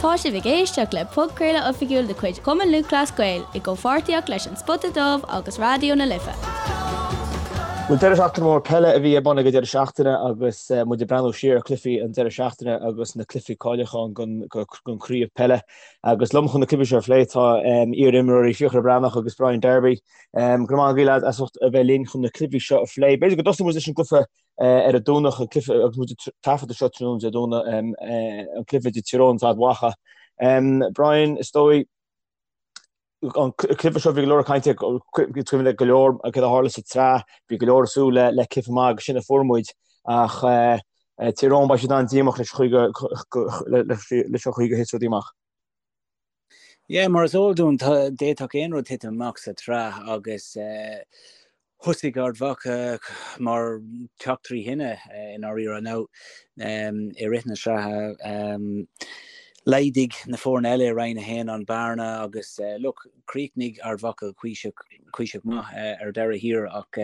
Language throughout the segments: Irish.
Tá sibh ag éisteacht le podchraoladh oifigiúil de chuid Chumann Lúthchleas Gael i gcomhpháirtíocht leis An Spota Dubh agus Raidió na Life. Bhuel, deireadh seachtaine mór peile a bhí ar bun ag an deireadh seachtaine agus muid ag breathnú siar ar chluichí an deireadh seachtaine agus na cluichí cáiliúcháin don chraobh peile. Agus liom chun na cluichí seo a phlé tá iar-imreoirí Fiachra Breathnach agus Brian Darby. Go raibh maith agaibh lads as ucht a bheith linn chun na cluichí seo a phlé. B'fhéidir go dtosóidh muid leis an gcluiche ar an Domhnach, an cluiche agus muid ag taifeadadh seo tráthnóna Dé Domhnaigh, an cluiche idir Tír Eoghain agus Ard Mhacha. Brian, is dóigh, an cluiche seo bhí go leor cainte, cuimhin le go leor céard a tharla sa tsraith, bhí go leor ag súil le cluiche maith agus sin a fuair muid ach Tír Eoghain beidh siad an-díomách leis an chaoi gur thit rudaí amach. Yeah, mar is eol dúinn, d'fhéadfadh aon rud titim amach sa tsraith agus thosaigh Ard Mhacha mar teach trí thine i ndáiríre. Now, i rith na sraithe, laghdaigh na foirne eile i Roinn 1 an bearna agus look, chríochnaigh Ard Mhacha cuíosach, cuíosach maith ar deireadh thiar ach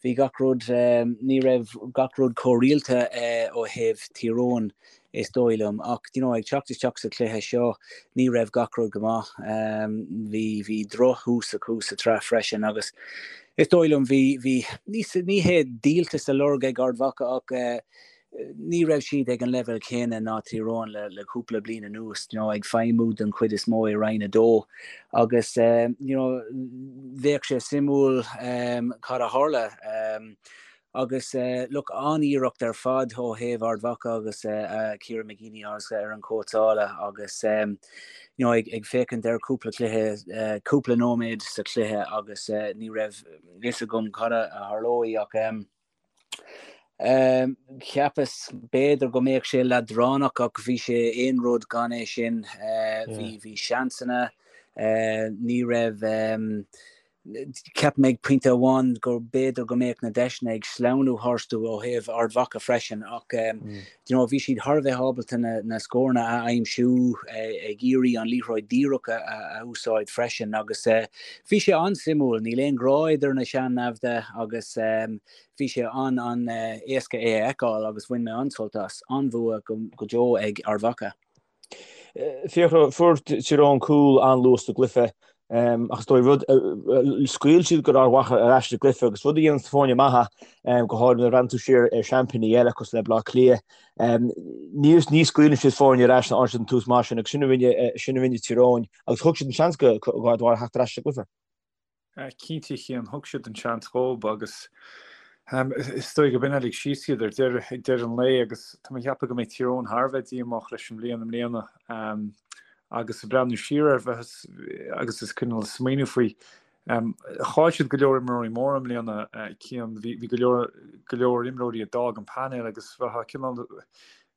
bhí gach rud, ní raibh gach rud chomh rialta ó thaobh Thír Eoghain is dóigh liom. Ach, you know, ag teacht isteach sa chluiche seo, ní raibh gach rud go maith. Bhí, bhí drochthús acu sa tsraith freisin agus is dóigh liom bhí, bhí, ní, ní hé díoltas á lorg ag Ard Mhacha ach ní raibh siad ag an leibhéal céanna ná Tír Eoghain le, le cúpla bliain anuas, you know, ag feidhmiú den chuid is mó i Roinn 2 agus, you know, bheadh sé suimiúil cad a tharla. Agus look, an-iarracht ar fad ó thaobh Ard Mhacha agus Kieran McGeeney ar an cóitseála agus you know, ag, ag féachaint ar cúpla cluiche, cúpla nóiméad sa chluiche agus ní raibh fhios agam cad a tharlóidh ach cheapas b'fhéidir go mbeadh sé leadránach ach bhí sé aon rud gan é sin. Bhí, bhí seansanna, ní raibh Cheap mé ag pointe amháin go b'fhéidir go mbeadh na deiseanna ag sleamhnú tharstu ó thaobh Ard Mhacha freisin ach you know bhí siad thar a bheith ábalta na na scóranna a aimsiú ag iarraidh an liathróid díreach a a úsáid freisin agus bhí sé an-suimiúil. Níl aon ghrá idir na sean-naimhde agus bhí sé an-an-éasca é a fheiceáil agus bhain mé an-sult as. An-bhua go go deo ag Ard Mhacha. Fiachra, fuair Tír Eoghain cúl an-luath sa gcluiche ach is dóigh rud, scaoil siad go Ard Mhacha ar ais sa gcluiche agus rud a dhéanann foirne maithe, go háirithe nuair a bhreathnaíonn tú siar ar seaimpíní eile cosúil le Baile Átha Cliath, ní ní scaoileann siad foirne ar ais nuair a fhaigheann siad an tús maith sin agus sin a rinne sin a rinne Tír Eoghain agus thug siad an seans go Ard Mhacha theacht ar ais sa gcluiche. Cinnte, a Chian, thug siad an seans dhób agus is dóigh go b'in a lig síos iad ar deireadh, ag deireadh an lae agus tá mé ag ceapadh go mbeidh Tír Eoghain thar a bheith díomách leis an mbliain i mbliana agus ag breathnú siar air bheith agus is cineál smaoineamh faoi. Chaill siad go leor imreoirí móra i mbliana, Cian, bhí go leor go leor imreoirí a d'fhág an painéal agus bheifeá cineál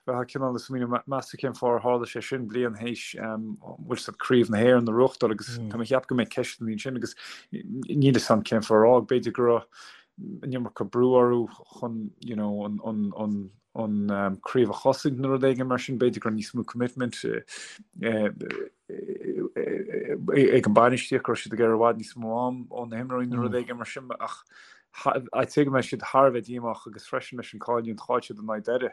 Bheifeá cineál ag smaoineamh, meas tú cén fáth ar tharla sé sin bliain théis bhfuil siad Craobh na hÉireann a bhuachtáil agus tá mé ag ceapadh go mbeidh ceisteanna ansin agus níl fhios a'm cén fáth ar fhág. B'fhéidir go raibh an iomarca brú orthu chun you know an an an an craobh a chosaint nó rud éigin mar sin, b'fhéidir go raibh níos mó commitment ag an bainistíocht go raibh siad ag iarraidh i bhfad níos mó am ó na himreoirí nó rud éigin mar sin ach I'd say go mbeidh siad thar a bheith díomách agus freisin leis an cailliúint chaill siad in aghaidh Doire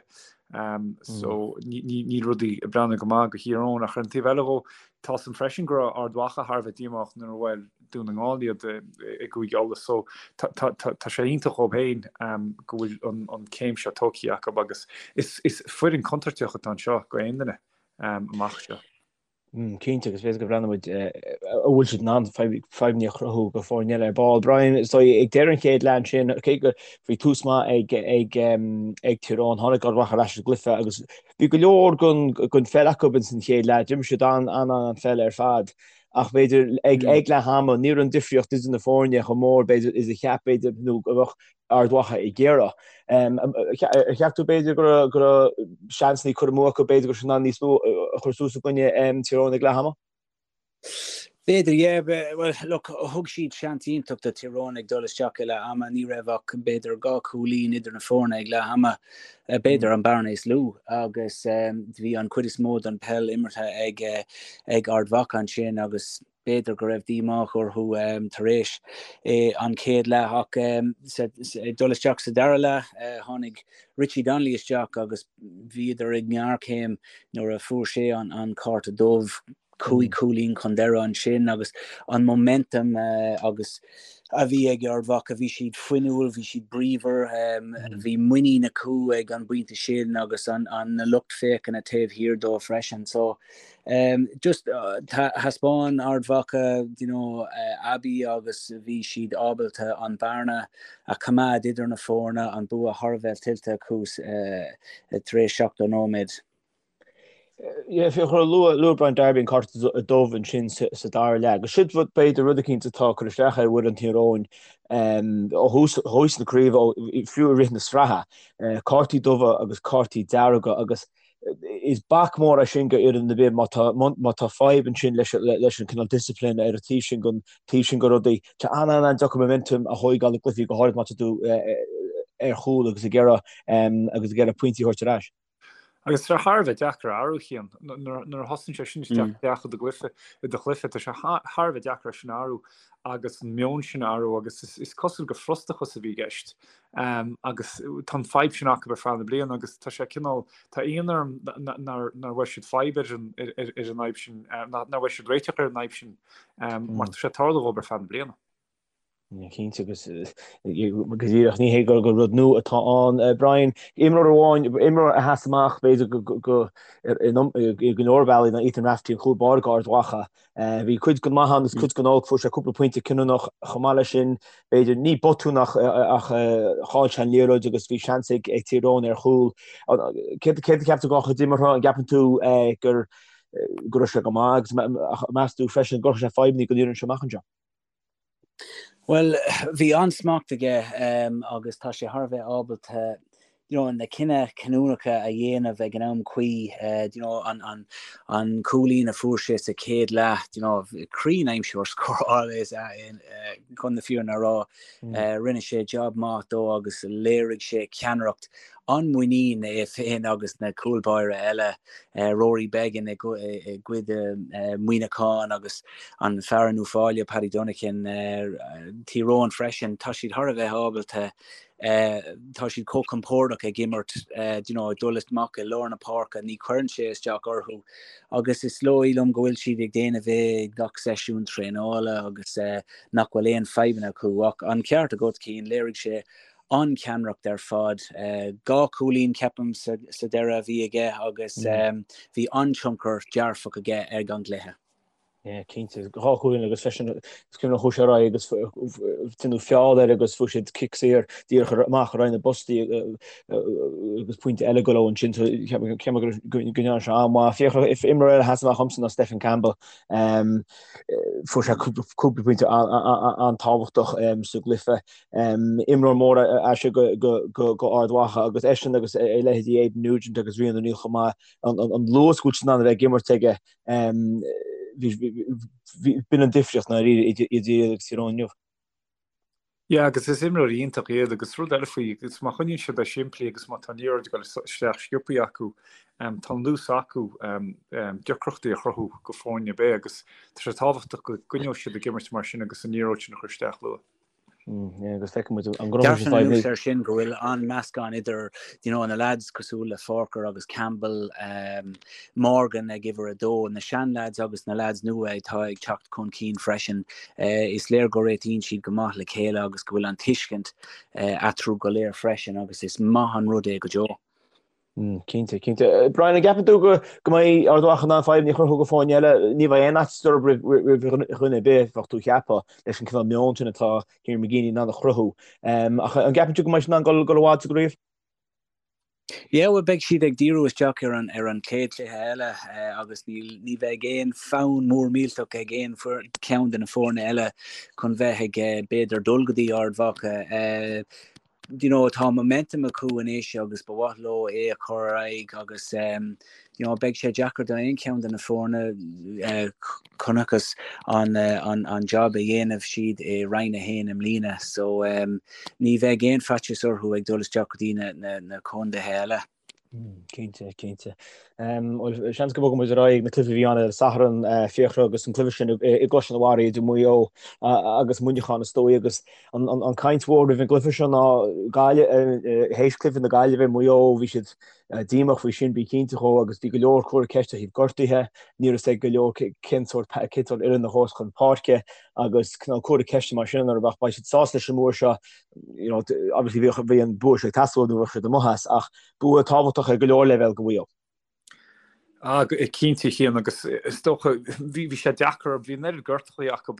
so níl rudaí ag breathnú go maith do Thír Eoghain ach ar an taobh eile dhó tá fhios a'm freisin go raibh Ard Mhacha thar a bheith díomách nuair a bhuail Dún na nGall iad i gCúige Uladh so tá sé iontach dhóibh féin go bhfuil an céim seo tógtha acu agus is foireann contúirteach atá anseo go aon duine amach seo. Cinnte, agus b'fhéidir go mbreathnóidh muid an bhfuil siad in ann fadhbanna a chruthú go foirne eile ar ball. Brian, is dóigh ag deireadh an chéad leath ansin, cé go bhí tús maith ag ag ag Tír Eoghain, tháinig Ard Mhacha ar ais sa gcluiche agus bhí go leor den den pheil acu ins an chéad leath. D'imir siad an an an pheil ar fad ach b'fhéidir ag ag leath ama ní raibh an difríocht idir na foirne chomh mór b'fhéidir is a cheap b'fhéidir nó go bheadh Ard Mhacha ag iarraidh. Ar cheap tú b'fhéidir go raibh go raibh seansanna curtha amú acu, b'fhéidir go raibh siad in ann níos mó a chur suas i gcoinne Tír Eoghain ag leath ama? B'fhéidir, yeah. Bhuel, look, thug siad seans iontach do Tír Eoghain ag dul isteach i leath ama. Ní raibh ach, b'fhéidir, 2 chúilín idir na foirne ag leath ama, b'fhéidir an bearna is lú, agus bhí an chuid is mó den peil imeartha ag ag Ard Mhacha ansin agus b'fhéidir go raibh díomá orthu tar éis an chéad leath ach ag dul isteach sa dara leath, tháinig Richie Donnelly isteach agus bhíodar i ngéarchéim nuair a fuair sé an cárta dubh. 5 chúilín chun deireadh ansin agus an momentum agus a bhí ag Ard Mhacha, bhí siad fuinniúil, bhí siad bríomhar, bhí muinín acu ag an bpointe sin agus an na lucht féachana taobh thiar dóibh freisin. So just thaispeáin Ard Mhacha you know aibí agus bhí siad ábalta an bearna a choimeád idir na foirne, an bua thar a bheith tuillte acu tar éis 70 nóiméad. Fiachra, luaigh Brian Darby an cárta dubh ansin sa dara leath. Agus sin rud, b'fhéidir, rud eicínt atá ag cur isteach ar fhoireann Thír Eoghain ó thús na craoibhe, fiú i rith na sraithe, cártaí dubha agus cártaí dearga agus is bac mór é sin go fhoireann ar bith má tá má tá fadhb ansin leis leis an cineál discipline ar an taobh sin den taobh sin de rudaí. Tá an-an-deacair momentum a thóigeáil i gcluichí go háirid má tá tú ar chúl agus ag iarraidh agus ag iarraidh pointí a thabhairt ar ais. Agus tá sé thar a bheith deacair a athrú, a Chian. Nuair a thosaíonn sé sin isteach isteach i do gcluiche, i do chluiche, tá sé thar a bheith deacair é sin a athrú agus an meon sin a athrú agus is cosúil gur frustrachas a bhí i gceist. Agus tá an fadhb sin acu ar feadh na bliana agus tá sé cineál, tá ionadh orm nár bhfuair siad fadhb ar an ar an fhadhb sin, nár bhfuair siad réiteach ar an fhadhb sin mar tá sé ag tarlú dhóibh ar feadh na bliana. Cinnte agus go díreach ní hé gur rud nua atá ann. Brian, imreoir amháin, imreoir a sheas amach b'fhéidir go go i go leor bealaí ná Ethan Rafferty an chúl báire go Ard Mhacha. Bhí cuid den maith ann agus cuid den olc, fuair sé cúpla pointe cinniúnach chomh maith leis sin, b'fhéidir ní botún ach ach chaill sé an liathróid agus bhí seans ag ag Tír Eoghain ar chúl. Céard céard a cheap tú dá chuid imeartha, an gceapann tú gur go raibh sé go maith agus meas tú freisin go gcuirfidh sé fadhbanna don fhoireann seo amach anseo? Bhuel, bhí an-smacht aige agus tá sé thar a bheith ábalta you know, na cinntí cinniúnacha a dhéanamh ag an am cuí. You know, an, an, an cúilín a fuair sé sa chéad leath, you know, cruinn-aimsiú scórála is ea é, chun na fírinne a rá. Rinne sé job maith dó agus léirigh sé ceannaireacht an-mhuinín é féin agus na cúl báire eile, Rory Beggan i gcuid Muineacháin agus an fear in Uíbh Fhailí, Paddy Dunican, Tír Eoghain freisin. Tá siad thar a bheith ábalta, tá siad chomh compordach ag imirt, you know, ag dul amach i lár na páirce, ní chuireann sé isteach orthu agus is dóigh liom go bhfuil siad ag déanamh é ag gach seisiún traenála agus nach bhfuil aon fadhbanna acu. Ach an ceart agat, Cian, léirigh sé an-cheannaireacht ar fad. 2 chúilín, ceapaim, sa deireadh a bhí aige agus bhí an-tionchar dearfach aige ar an gcluiche. Yeah, cinnte. 2 chúilín agus freisin is cuimhin liom chuaigh sé ar aghaidh agus déanadh feall air agus fuair siad cic saor díreach amach ar aghaidh na bpostaí agus pointe eile go leo ansin. So ceapaim go ndearna sé an-mhaith. Fiachra, imreoir eile a sheas amach dhomsa ná Stephen Campbell. Fuair sé cúpla pointe an-tábhachtach sa gcluiche. Imreoir mór é sin go Ard Mhacha agus eisean agus a leithéidí Aidan Nugent agus Rian O'Neill chomh maith, an luas go bhfuil siad in ann a bheith ag imirt aige, b'in an difríocht ndáiríre idir iad agus Tír Eoghain inniu. Yeah, agus is imreoirí iontach iad agus rud eile faoi, agus má choinníonn siad é simplí agus má tá an liathróid ag dul isteach sciobthaí acu, tá an luas acu deacrachtaí a chruthú go foirne ar bith agus tá sé tábhachtach go gcoinneoidh siad ag imirt mar sin agus an liathróid sin a chur isteach luath. Agus feicfidh muid an gcruthóidh siad fadhb. Dearfainn anuas air sin go bhfuil an-meascán idir you know, na lads cosúil le Forker agus Campbell, um, Morgan ag uimhir a dó, na sean-lads agus na lads nua atá ag teacht chun cinn freisin. Uh, is léir go réitíonn siad go maith le chéile agus go bhfuil an tuiscint uh, eatarthu go léir freisin agus is maith an rud é go deo. Cinnte, cinnte. Brian, an gceapann tú go mbeidh Ard Mhacha in ann fadhbanna a chruthú go foirne eile? Ní bheidh aon fhaitíos orthu roimh dhuine ar bith, bheadh tú a cheapadh, leis an cineál meon sin atá Kieran McGeeney in ann a chruthú. Ach an gceapann tú go mbeidh siad in ann dul i bhfad sa gcraobh? Yeah, bhuel beidh siad ag díriú isteach ar an ar an chéad chluiche eile agus níl ní bheidh aon fonn mór millteach ag aon cheann de na foirne eile chun bheith ag b'fhéidir dul go dtí Ard Mhacha. You know, tá momentum acu anois agus ba mhaith leo é a chur ar aghaidh agus you know, beidh sé deacair do aon cheann de na foirne chonacthas an, an, an job a dhéanamh siad i Roinn 1 i mbliana so ní bheidh aon faitíos orthu ag dul isteach go dtí na, na, na contaetha eile. Cinnte, cinnte. Seans go mbogfaidh muid ar aghaidh na cluichí a bhí ann ar an Satharn, Fiachra agus an cluiche sin i gCrois an Bharraigh idir Maigh Eo agus Muineachán is dóigh agus an caint mhór roimh an gcluiche seo ná Gaillimh, théis cluiche na Gaillimhe, Maigh Eo, bhí siad díomách faoi sin, bí cinnte dhó, agus bhí go leor cur ceiste ó thaobh gortuithe, ní raibh fhios ag go leor cén sórt cén sórt fhoireann a ghabhfas chun páirce agus cineál cur ceiste mar sin orthu ach beidh siad sásta leis an mbua seo. you know, obviously bhí, bhí an bua seo ag teastáil nó bheadh siad amuigh as, ach bua tábhachtach ar go leor leibhéal do Mhaigh Eo. Ah, cinnte, a Chian, agus is dócha, bhí, bhí sé deacair, bhí an oiread gortachaí acu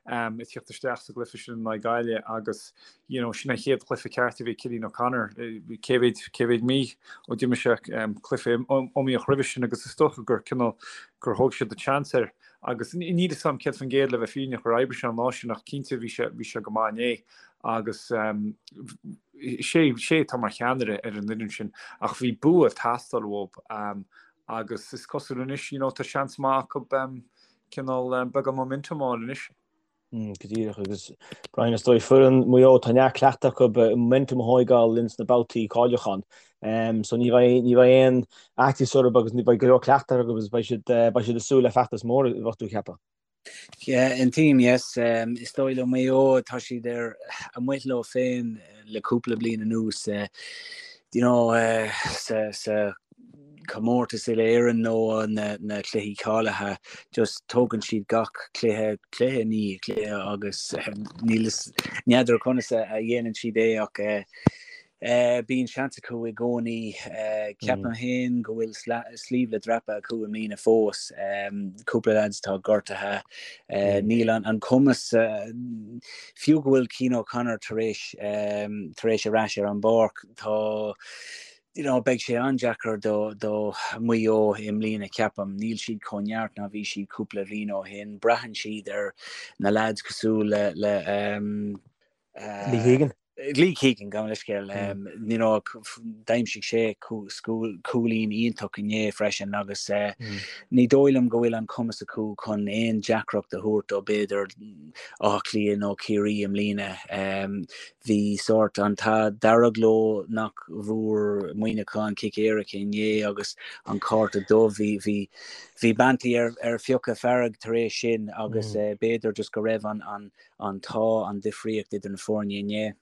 um, ag tíocht isteach sa gcluiche sin in aghaidh Gaillimh agus, you know, sin an chéad chluiche ceart a bhí Cillian O'Connor, cé mhéad, cé mhéad mí ó d'imir sé um, cluiche iomaíoch roimhe sin agus is dócha gur cineál, gur thóg siad an seans air. Agus níl fhios a'm 100% le bheith fírinneach ar oibrigh sé an lá sin ach cinnte bhí sé, bhí sé go maith inné agus sé, sé atá mar cheannaire ar an fhoireann sin ach bhí bua ag teastáil uathu agus is cosúil anois, you know, tá seans maith acu cineál beagán momentum a fháil anois. Go díreach, agus Brian, is dóigh foireann Mhaigh Eo, tá neart cleachtadh acu momentum a thóigeáil ins na babhtaí cáiliúcháin. So ní bheidh, ní bheidh aon fhaitíos orthu agus ní bheidh go leor cleachtadh acu agus beidh siad, beidh siad ag súil le feachtas mór, bheadh tú ag ceapadh. Yeah, aontaím, yes. Is dóigh le Maigh Eo, tá siad ar amuigh leo féin le cúpla bliain anuas. You know, sa, sa comórtas uile-Éireann nó na cluichí cáilithe, just tógann siad gach cluiche, cluiche i ndiaidh cluiche agus níl fhios, n'fheadar conas a dhéanann siad é ach bíonn seans acu i gcónaí. Ceapaim féin go bhfuil sliabh le dreapadh acu i mbliana fós. Cúpla lads atá gortaithe. Níl an cumas, fiú go bhfuil Cian O'Connor tar éis tar éis ar ais ar an bpáirc, tá you know, beidh sé an-deacair do, do Mhaigh Eo i mbliana, ceapaim. Níl siad chomh neart ná bhí siad cúpla bhliain ó shin. Braitheann siad ar na lads cosúil le, le um, uh, Lee Keegan. Lee Keegan, gabh mo leithscéal. Um, you know, d'aimsigh sé cúilín iontach inné freisin agus uh, mm. ní dóigh liom go bhfuil an cumas acu chun aon deacracht a thabhairt do b'fhéidir Áth Cliath nó Ciarraí i mbliana. Um, Bhí sórt an t-ádh dearg leo nach bhfuair Muineachán cic éirice inné agus an cárta dubh. Bhí, bhí, bhí Banty ar, ar fiuchadh fearg tar éis sin agus b'fhéidir just go raibh an, an, an t-ádh an difríocht idir na foirne inné.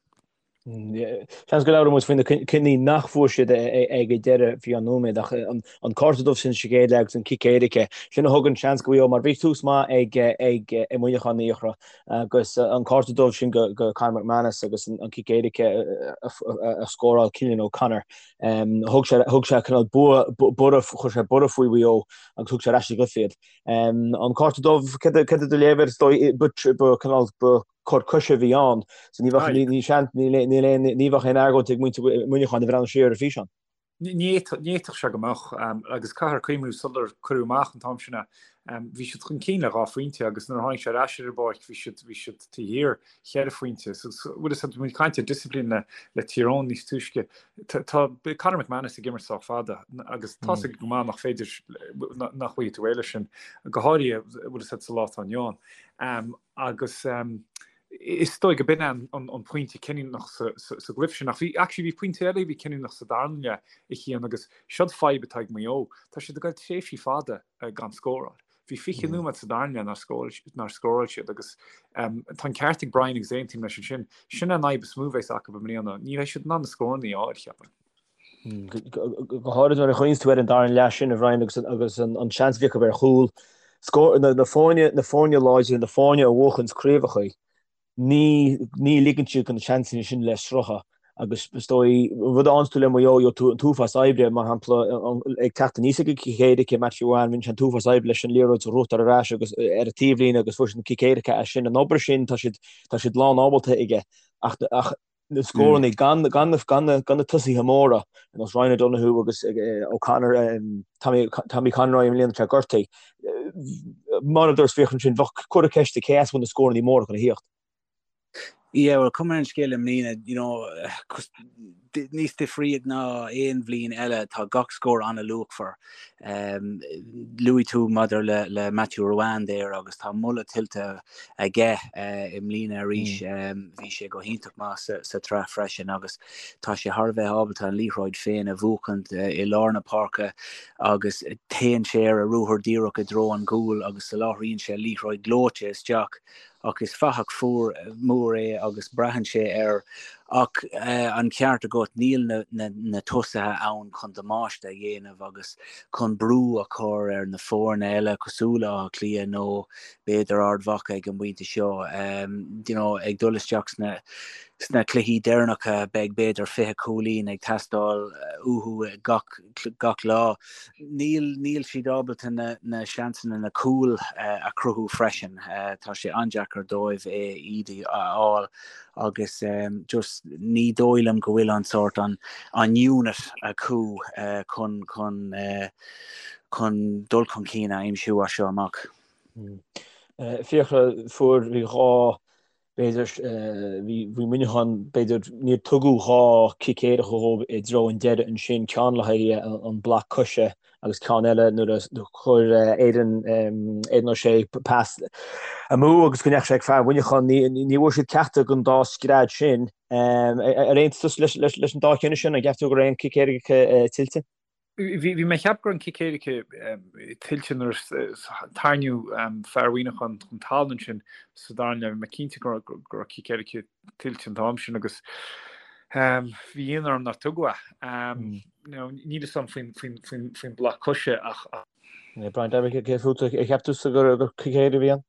Seans go labhróidh muid faoi na cinní nach bhfuair siad ag an deireadh faoi cheann nóiméad ach an cárta dubh sin sa gcéad leath agus an cic éirice, sin a thug an seans do Mhaigh Eo mar bhí tús maith ag ag Muineachán a Fhiachra. Agus an cárta dubh sin go Conor McManus agus an cic éirice a scóráil Cillian O'Connor. Thug sé thug sé cineál bua borradh chuir sé borradh faoi Mhaigh Eo agus thug sé ar ais sa gcluiche iad. An cárta dubh céard é do léamh air is dóigh ba cineál ba cor coise a bhí ann so ní bheadh ní ní ní ní bheadh aon argóint ag muintir Mhuineacháin a bhreathnú siar ar an bhfíseán. Ní fhéadfadh sé go mbeadh, agus caithfear cuimhniú sular cuireadh amach an t-am sin é, bhí siad chun cinn le 2 phointe agus nuair a tháinig sé ar ais ar an bpáirc bhí siad, bhí siad taobh thiar cheithre phointe. So bhfuil fhios a'd, bhí muid ag caint ar discipline le, le Tír Eoghain níos túisce. Tá, tá Conor McManus ag imirt sách fada agus tá fhios aige go maith nach féidir, nach bhfaighidh tú réidh leis sin, go háirithe bhfuil fhios a'd sa lá atá inniu ann. Agus Is dóigh go b'in é an pointe cinniúnach sa gcluiche sin. Ach bhí, actually, bhí pointe eile a bhí cinniúnach sa darna leath, a Chian, agus seod fadhb atá ag Maigh Eo. Tá siad ag goil tréimhsí fada gan scóráil. Bhí 20 nóiméad sa darna leath nár scóráil siad agus tá an ceart ag Brian agus aontaím leis ansin. Sin an fhadhb is mó a bheas acu i mbliana. Ní bheidh siad in ann na scóranna a fháil, cheapfainn. Go háirid nuair a chuimhníonns tú ar an darna leath sin, a Bhrian, agus agus an seans a bhí acu ar chúl. Scór, na, na foirne, na foirne láidre, na foirne a bhuachanns craobhacha, ní, ní ligeann siad do na seansanna sin le sroicheadh. Agus is dóigh, an rud a fhaigheanns tú le Maigh Eo, gheobhaidh tú an t-uafás oibre, mar shampla, ag teacht aníos ag an cic éirice, Matthew Ruane, rinne sé an t-uafás oibre leis an liathróid a ghnóthachtáil ar ais agus ar an taobhlíne agus fuair siad an cic éirice as sin. An obair sin, tá siad, tá siad lán ábalta aige. Ach, ach na scóranna, gan na tosaithe móra, ar nós Ryan O'Donoghue agus O'Connor, Tommy Tommy Conroy i mbliana tá gortaithe. Mar a dúirt Fiachra ansin, bheadh cur ceiste cé as a bhfuil na scóranna móra chun a thíocht. Yeah, well, cuma ar an scéal i mbliana, you know, níos difríoch ná aon bhliain eile, tá gach scór an-luachmhar. Um, luaigh tú maidir le, le Matthew Ruane there agus tá moladh tuillte aige uh, i mbliana arís. Mm. Um, bhí sé go hiontach maith sa, sa tsraith freisin agus tá sé thar a bheith ábalta an liathróid féin a bhuachaint uh, i lár na páirce agus téann sé ar a ruathar díreach i dtreo an gcúil agus soláthraíonn sé liathróid gleoite isteach ach is fathach fuar mór é agus braitheann sé air ach an ceart agat níl na tosaithe ann chun damáiste a dhéanamh agus chun brú a chur ar na foirne eile cosúil le Áth Cliath nó b'fhéidir Ard Mhacha ag an bpointe seo. You know, ag dul isteach sna sna cluichí deireanacha beidh b'fhéidir 20 cúilín ag teastáil uathu gach gach lá. Níl, níl siad ábalta na, na seansanna, na cúil a chruthú freisin. Tá sé an-deacair dóibh é, iad a fháil agus just ní dóigh liom go bhfuil an sórt, an, an unit acu chun, chun, chun dul chun cinn a aimsiú as seo amach. Fiachra, fuair, bhí 2 B'fhéidir, bhí Muineachán, b'fhéidir, níor tugadh 2 cic éirice dhóibh i dtreo an deireadh ansin, ceann le haghaidh an bloc coise agus ceann eile nuair a chuir Aidan, Aidan O'Shea pas amú agus go ndeachaigh sé ag fear Mhuineacháin. Ní bhfuair siad ceachtar den dá scread sin. Ar aontaigh tusa leis an dá chinneadh sin? An gceap tú go raibh aon cic éirice tuillte? Bhí mé ag ceapadh go raibh an cic éirice tuillte nuair a tarraingíodh fear Mhuineacháin chun talún ansin sa dara leath. Bhí mé cinnte go raibh cic éirice tuillte an t-am sin agus bhí ionadh orm nár tugadh é. Níl fhios agam faoin bloc coise ach. Brian Davitt, cé fút a cheap tusa gur cic éirice a bhí ann?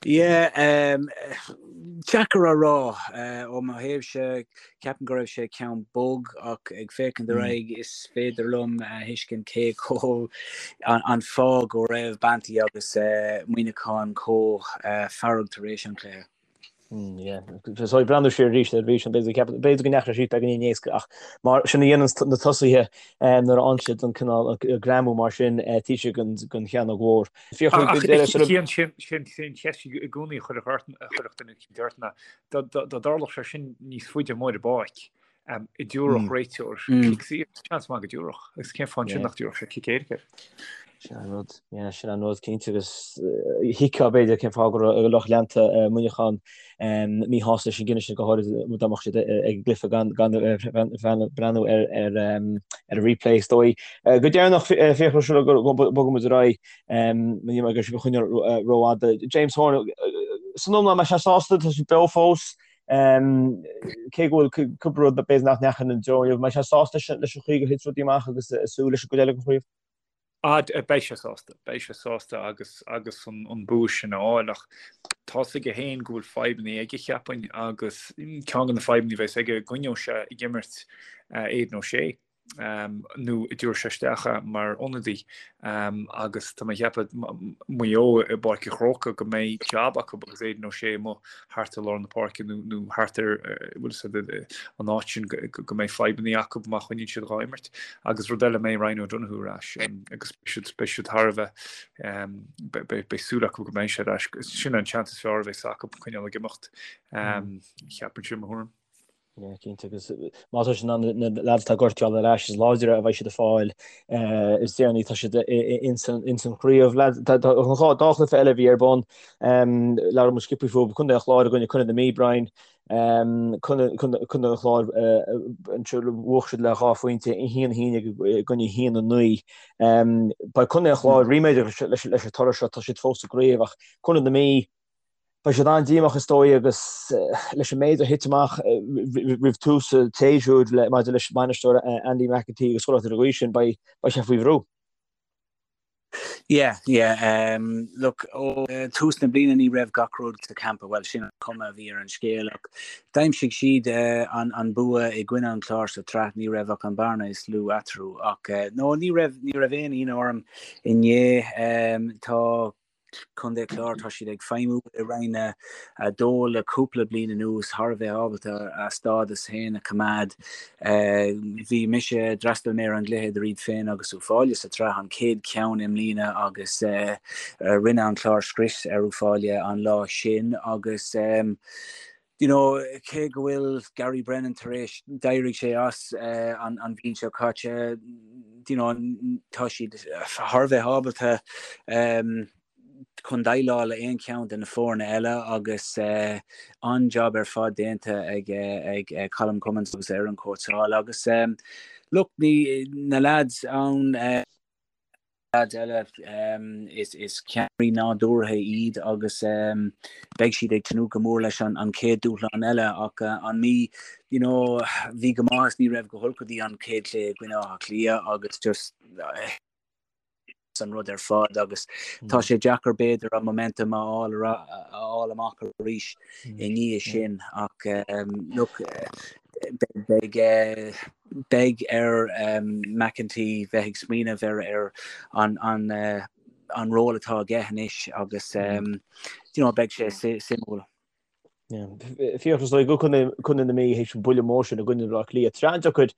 Yeah, um, deacair a rá. Ó mo thaobhse, ceapaim go raibh sé ceann bog ach ag féachaint ar aghaidh is féidir liom a thuiscint cé chomh an fáth go raibh Banty agus Muineachán chomh fearg tar éis an chluiche. Yeah. So ag breathnú siar arís ar bhí sin b'fhéidir go ndeachaigh sé beagáinín éasca ach mar sin a dhéanann na tosaithe nuair a fhaigheann siad an cineál greamú mar sin taobh istigh den chearnóg mhór. Ach Cian, sin an cheist i gcónaí a chuirfeadh duine eicínt ort ná dá dtarlódh sé sin níos faide amuigh ar an bpáirc, an dtabharfadh réiteoir cic saor, seans maith go dtabharfadh, agus cén fáth ansin nach dtabharfadh sé cic éirice air? Sin an rud, yeah, sin an rud cinnte agus thuigfeá b'fhéidir cén fáth go raibh lucht leanta Mhuineacháin míshásta leis an gcinneadh sin go háirid dá mbeadh siad ag an gcluiche gan breathnú ar an replay is dóigh. Go deireanach Fiachra sula mbogann muid ar aghaidh, ní mé ag sibh a choinneáil rófhada. James Horan, san iomlán an mbeidh sé sásta, tá siad beo fós, cé go bhfuil cúpla rud b'fhéidir nach ndeachaigh ina dtreo inniu, an mbeidh sé sásta leis an chaoi gur thit rudaí amach agus ag súil leis an gcuid eile den chraobh? Ah, beidh sé sásta, beidh sé sásta agus agus an bua sin a fháil ach tá's aige féin go bhfuil fadhbanna aige cheapfainn agus ceann de na fadhbanna a bheas aige an gcoinneoidh sé ag imirt Aidan O'Shea nó an dtabharfaidh sé isteach é mar ionadaí agus tá mé ag ceapadh Maigh Eo i bPáirc an Chrócaigh go mbeidh jab acu agus Aidan O'Shea amuigh thart ar lár na páirce nó nó thart ar bhfuil fhios agat an áit sin go mbeidh fadhbanna acu má choinníonn siad dhá imirt. Agus rud eile mbeidh Ryan O'Donoghue ar ais agus beidh siad beidh siad thar a bheith beidh súil acu go mbeidh sé ar ais. Sin an seans is fearr a bheas acu coinneáil ag imeacht cheapfainnse i mo thuairim. Yeah, cinnte agus má tá siad in ann na lads atá gortaithe a fháil ar ais is láidre a bheidh siad ag fáil is deireanaí tá siad ins an chraobh. Lads, tá an dá chluiche eile a bhí ar bun, labhair muid sciobtha fúthu, Contae an Chláir i gcoinne Contae na Mí, Brian, Contae an Chláir anseo bhuaigh siad le 2 phointe, 1-11 i gcoinne 1-9. Beidh Contae an Chláir ríméadach leis an toradh seo, tá siad fós sa gcraobh ach Contae na Mí, Beidh siad an-díomách is dóigh agus leis an méid a thit amach roimh tús an tséasúir maidir leis an mbainisteoir Andy McEntee agus chuile shórt ar an gcaoi sin, beidh sé faoi bhrú. Yeah, yeah. Um, look, ó tús na bliana ní raibh gach rud sa campa, well sin an cuma a bhí ar an scéal ach d'aimsigh siad uh, an, an bua i gcoinne an Chláir sa tsraith, ní raibh ach an bearna is lú eatarthu ach uh, no, ní raibh, ní raibh aon ionadh orm inné. Um, tá. Contae Chláir, tá siad ag feidhmiú i Roinn 2 le cúpla bliain anuas, thar a bheith ábalta a stádas féin a choimeád. Bhí mise, d'fhreastail mé ar an gcluiche idir iad féin agus Uíbh Fhailí sa tsraith, an chéad cheann i mbliana agus rinne an Clár scrios ar Uíbh Fhailí an lá sin agus you know, cé go bhfuil Gary Brennan tar éis, d'éirigh sé as an bhliain seo caite, you know, tá siad thar a bheith ábalta chun déileáil le aon cheann de na foirne eile agus an-jab ar fad déanta ag ag Colm Cummins agus a fhoireann cóitseála agus look, ní na lads ann leaids eile, is ceannairí nádúrtha iad agus beidh siad ag tnúth go mór leis an chéad dúshlán eile ach an Mhí, you know, bhí go maith is ní raibh go holc go dtí an chéad chluiche i gcoinne Átha Cliath agus just an rud ar fad agus tá sé deacair b'fhéidir an momentum a fháil a fháil amach arís i ndiaidh sin ach look beidh beidh ar McEntee bheith ag smaoineamh ar ar an an an ról atá aige anois agus you know beidh sé suimiúil. Fiachra is dóigh go Contae na Mí théis an buille mór sin i gcoinne Bhaile Átha Cliath. Tá sé an-deacair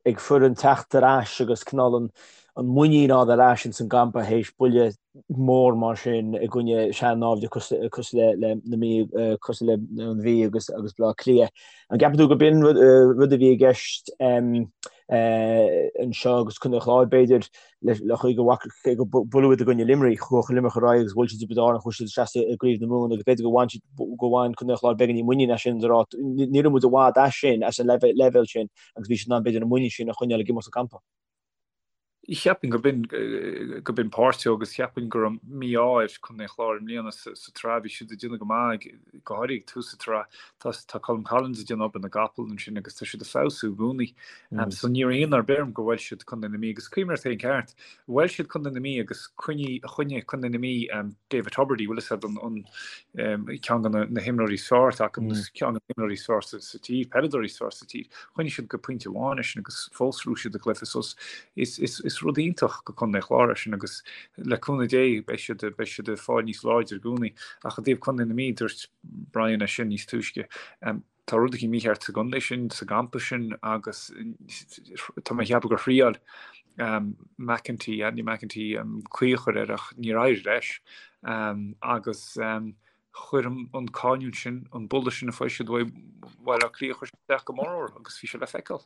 ag foireann teacht ar ais agus cineál an an muinín a fháil ar ais ins an gcampa théis buille mór mar sin i gcoinne sean-naimhde cosúil le na Mí, cosúil le an Mhí agus agus Baile Átha Cliath. An gceapann tú go b'in rud a bhí i gceist anseo agus Contae an Chláir b'fhéidir le chaoi go bhfaca go buaileadh iad i gcoinne Luimnigh, chuaigh Luimneach ar aghaidh agus bhuail siad Tiobraid Árann, chuaigh siad isteach i gCraobh na Mumhan agus b'fhéidir go bhain siad go bhain Contae an Chláir beagáinín muinín as sin a rá ní raibh muid i bhfad as sin as an leibhéal sin agus bhí siad in ann b'fhéidir an muinín sin a choinneáil ag imeacht sa gcampa. Cheapfainn go b'in go b'in páirt de agus cheapfainn go raibh mí-ádh ar Chontae an Chláir i mbliana sa tsraith. Bhí siad ag déanamh go maith, go háirithe ag tús na sraithe. Tá tá Colm Collins ag déanamh obair na gcapall ansin agus tá siad ag feabhsú i gcónaí. So ní raibh ionadh ar bith orm gur bhuail siad Contae na Mí agus cuimhnigh ort féin ceart. Bhuail siad Contae na Mí agus choinnigh choinnigh Contae na Mí David Tubridy, bhfuil fhios a'd an an ceann de na himreoirí is fearr atá acu, ceann de na himreoirí is fearr sa tír, peileadóirí is fearr sa tír. Choinnigh siad go pointe amháin eisean agus fós ghnóthaigh siad an cluiche. So is, is, is rud iontach go Contae an Chláir é sin agus le cúnamh Dé beidh siad, beidh siad ag fáil níos láidre i gcónaí. Ach i dtaobh Contae na Mí, dúirt Brian é sin níos túisce, tá rud éigin mícheart sa gcontae sin, sa gcampa sin agus tá mé ag ceapadh gur thriáil McEntee, Andy McEntee, caoi a chur air ach níor éirigh leis agus chuir an cáineadh sin, an buille sin a fuair siad uaidh Bhaile Átha Cliath, chuir sé isteach go mór orthu agus bhí sé le feiceáil.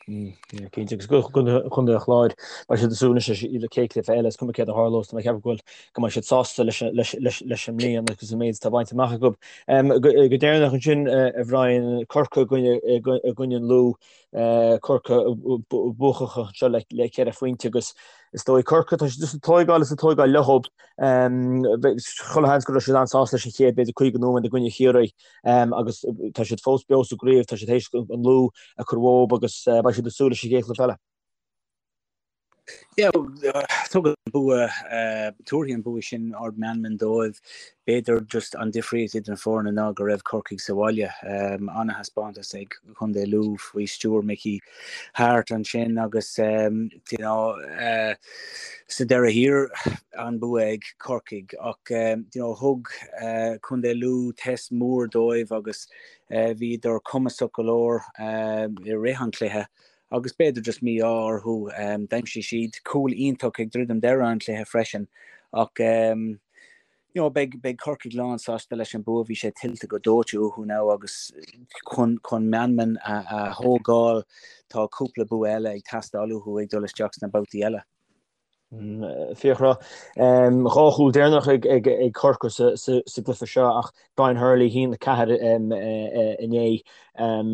Cinnte, agus Contae an Chláir, beidh siad ag súil anois leis an chéad chluiche eile, is cuma céard a tharlós, tá mé ag ceapadh go bhfuil, go mbeidh siad sásta leis leis an mbliain agus an méid atá bainte amach acu. Go deireanach ansin, a Bhrian, Corcaigh i gcoinne an Lú, Corcaigh buacach anseo le ceithre phointe agus is dóigh Corcaigh, tá siad just ag tóigeáil is ag tóigeáil leo. Chuile sheans go raibh siad an-sásta leis an chéad b'fhéidir 50 nóiméad i gcoinne Chiarraí agus tá siad fós beo sa gcraobh, tá siad théis an Lú a chur uathu agus beidh siad ag súil leis an gcéad chluiche eile. Yeah, tugann an bua, tabharfaidh an bua sin ard meanman dóibh. B'fhéidir just an difríocht idir na foirne ná go raibh Corcaigh sa bhaile. Ana-thaispeántas ag Contae Lú faoi stiúir Mickey Harte ansin agus you know, sa deireadh thiar an bua ag Corcaigh ach you know, thug Contae Lú test mór dóibh agus Bhíodar cumasach go leor i rith an chluiche agus b'fhéidir just mí-ádh orthu. D'aimsigh siad cúl iontach ag druidim deireadh an chluiche freisin ach you know beidh beidh Corcaigh lán sásta leis an bua. Bhí sé tuillte go dóite uathu now agus chun chun meanman a a thógáil tá cúpla bua eile ag teastáil uathu ag dul isteach sna babhtaí eile. Fiachra, 2 chúl deireanach ag Corcaigh sa gcluiche seo ach Brian Hurley, 1-4 inné,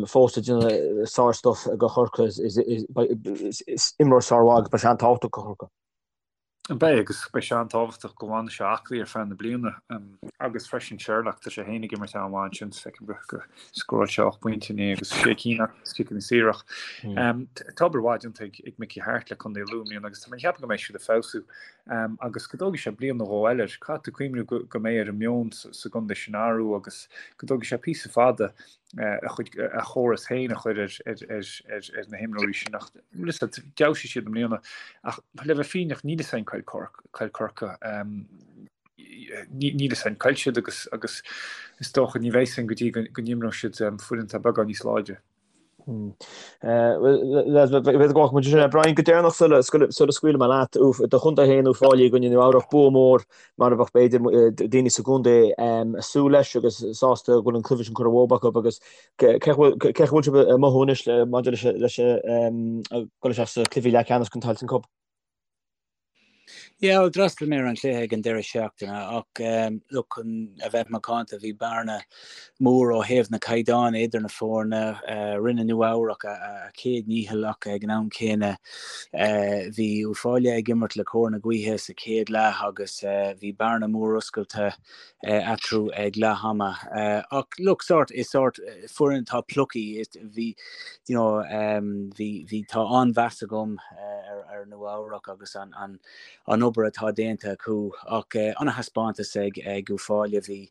fós ag déanamh sár-stuif do Chorcaigh. Is imreoir sármhaith agus beidh sé an-tábhachtach do Chorcaigh. Beidh agus beidh sé an-tábhachtach go bhfanfaidh sé aclaí ar feadh na bliana agus freisin Sherlock, tá sé féin ag imirt an-mhaith ansin, feicim go scóráil sé 8 bpointe inné agus sé cinn as ciceanna saora. Tá obair mhaith déanta ag Mickey Harte le Contae Lú i mbliana agus tá mé ag ceapadh go mbeidh siad ag feabhsú agus go dtógfaidh sé bliain nó dhó eile. Caithfidh tú cuimhniú go mbeidh ar an meon sa gcontae sin athrú agus go dtógfaidh sé píosa fada a chuid a chóras féin a chur ar na himreoirí sin ach d'fheabhsaigh siad i mbliana ach le bheith fírinneach níl fhios a'inn cá bhfuil Corcaigh. Níl a fhios againn cá bhfuil siad agus agus is dócha ní bheidh a fhios againn go dtí go n-imreoidh siad foireann atá beagán níos láidre. B'fhéidir go bhfágfaidh muid sin. Brian, go deireanach sula scaoilfidh mé leat, do chontae féin Uíbh Fhailí i gcoinne Nua Eabhrach, bua mór mar a bheadh b'fhéidir daoine sa gcontae ag súil leis agus sásta go bhfuil an cluiche sin curtha uathu acu agus cé chaoi a bhfuil sibh ag mothú anois maidir leis an dul isteach sa cluiche leathcheannais den Tailteann Cup? Yeah, bhuel, d'fhreastail mé ar an chluiche ag an deireadh seachtaine ach look, chun a bheith macánta, bhí bearna mór ó thaobh na caighdeáin idir na foirne. Rinne Nua Eabhrac a chéad ndícheall ach ag an am céanna bhí Uíbh Fhailí ag imirt le cóir na gaoithe sa chéad leath agus bhí bearna mór oscailte eatarthu ag leath ama. Ach look, sort, is sort foireann atá plucky, bhí, you know, bhí, bhí, tá an-mheas agam ar, ar Nua Eabhrac agus an, an, an obair atá déanta acu. Ach an-thaispeántas ag, ag Uíbh Fhailí, bhí,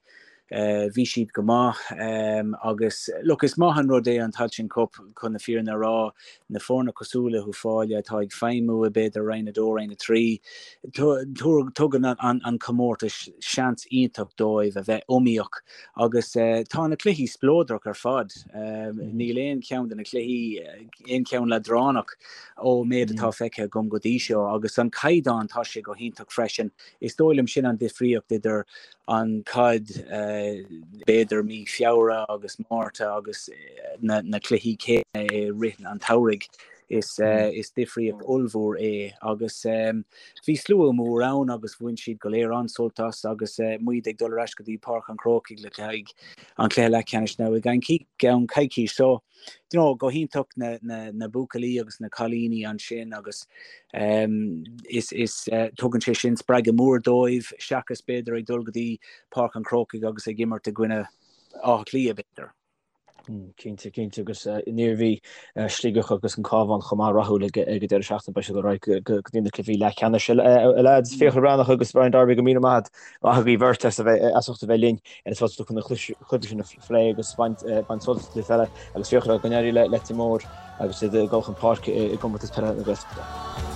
bhí siad go maith agus look, is maith an rud é an Tailteann Cup chun na fírinne a rá, na foirne cosúil le hUíbh Fhailí atá ag feidhmiú i b'fhéidir Roinn 2, Roinn 3, Tugann an comórtas seans iontach dóibh a bheith iomaíoch agus tá na cluichí spleodrach ar fad. Níl aon cheann de na cluichí, aon cheann leadránach ón méid atá feicthe agam go dtí seo agus an caighdeán, tá sé go hiontach freisin. Is dóigh liom sin an difríocht idir an caid b'fhéidir mí Feabhra agus Márta agus na cluichí céanna i rith an tsamhraidh. Is difríocht ollmhór é agus bhí slua mór ann agus bhain siad go léir an-sult as agus muid ag dul ar ais go dtí Páirc an Chrócaigh le haghaidh an chluiche leathcheannais now i gceann coicís. So, you know, go hiontach na, na, na buachaillí agus na cailíní ansin agus is, is tugann sé sin spreagadh mór dóibh seachas b'fhéidir ag dul go dtí Páirc an Chrócaigh agus ag imirt i gcoinne Átha Cliath b'fhéidir. Cinnte, cinnte, agus an Iarmhí, Sligeach agus an Cabhán chomh maith rathúil ag an deireadh seachtaine, beidh siad ar aghaidh go dtí na cluichí leathcheannais. A lads, Fiachra Breathnach agus Brian Darby, go míle maith agaibh beirt as a bheith as ucht a bheith linn ar an Spota Dubh chun na cluichí sin a phlé agus baint sult as an gcluiche peile agus Fiachra, go n-éirí le Leitir Móir agus iad ag dul chun páirce i gcomórtas peile na Gaeltachta.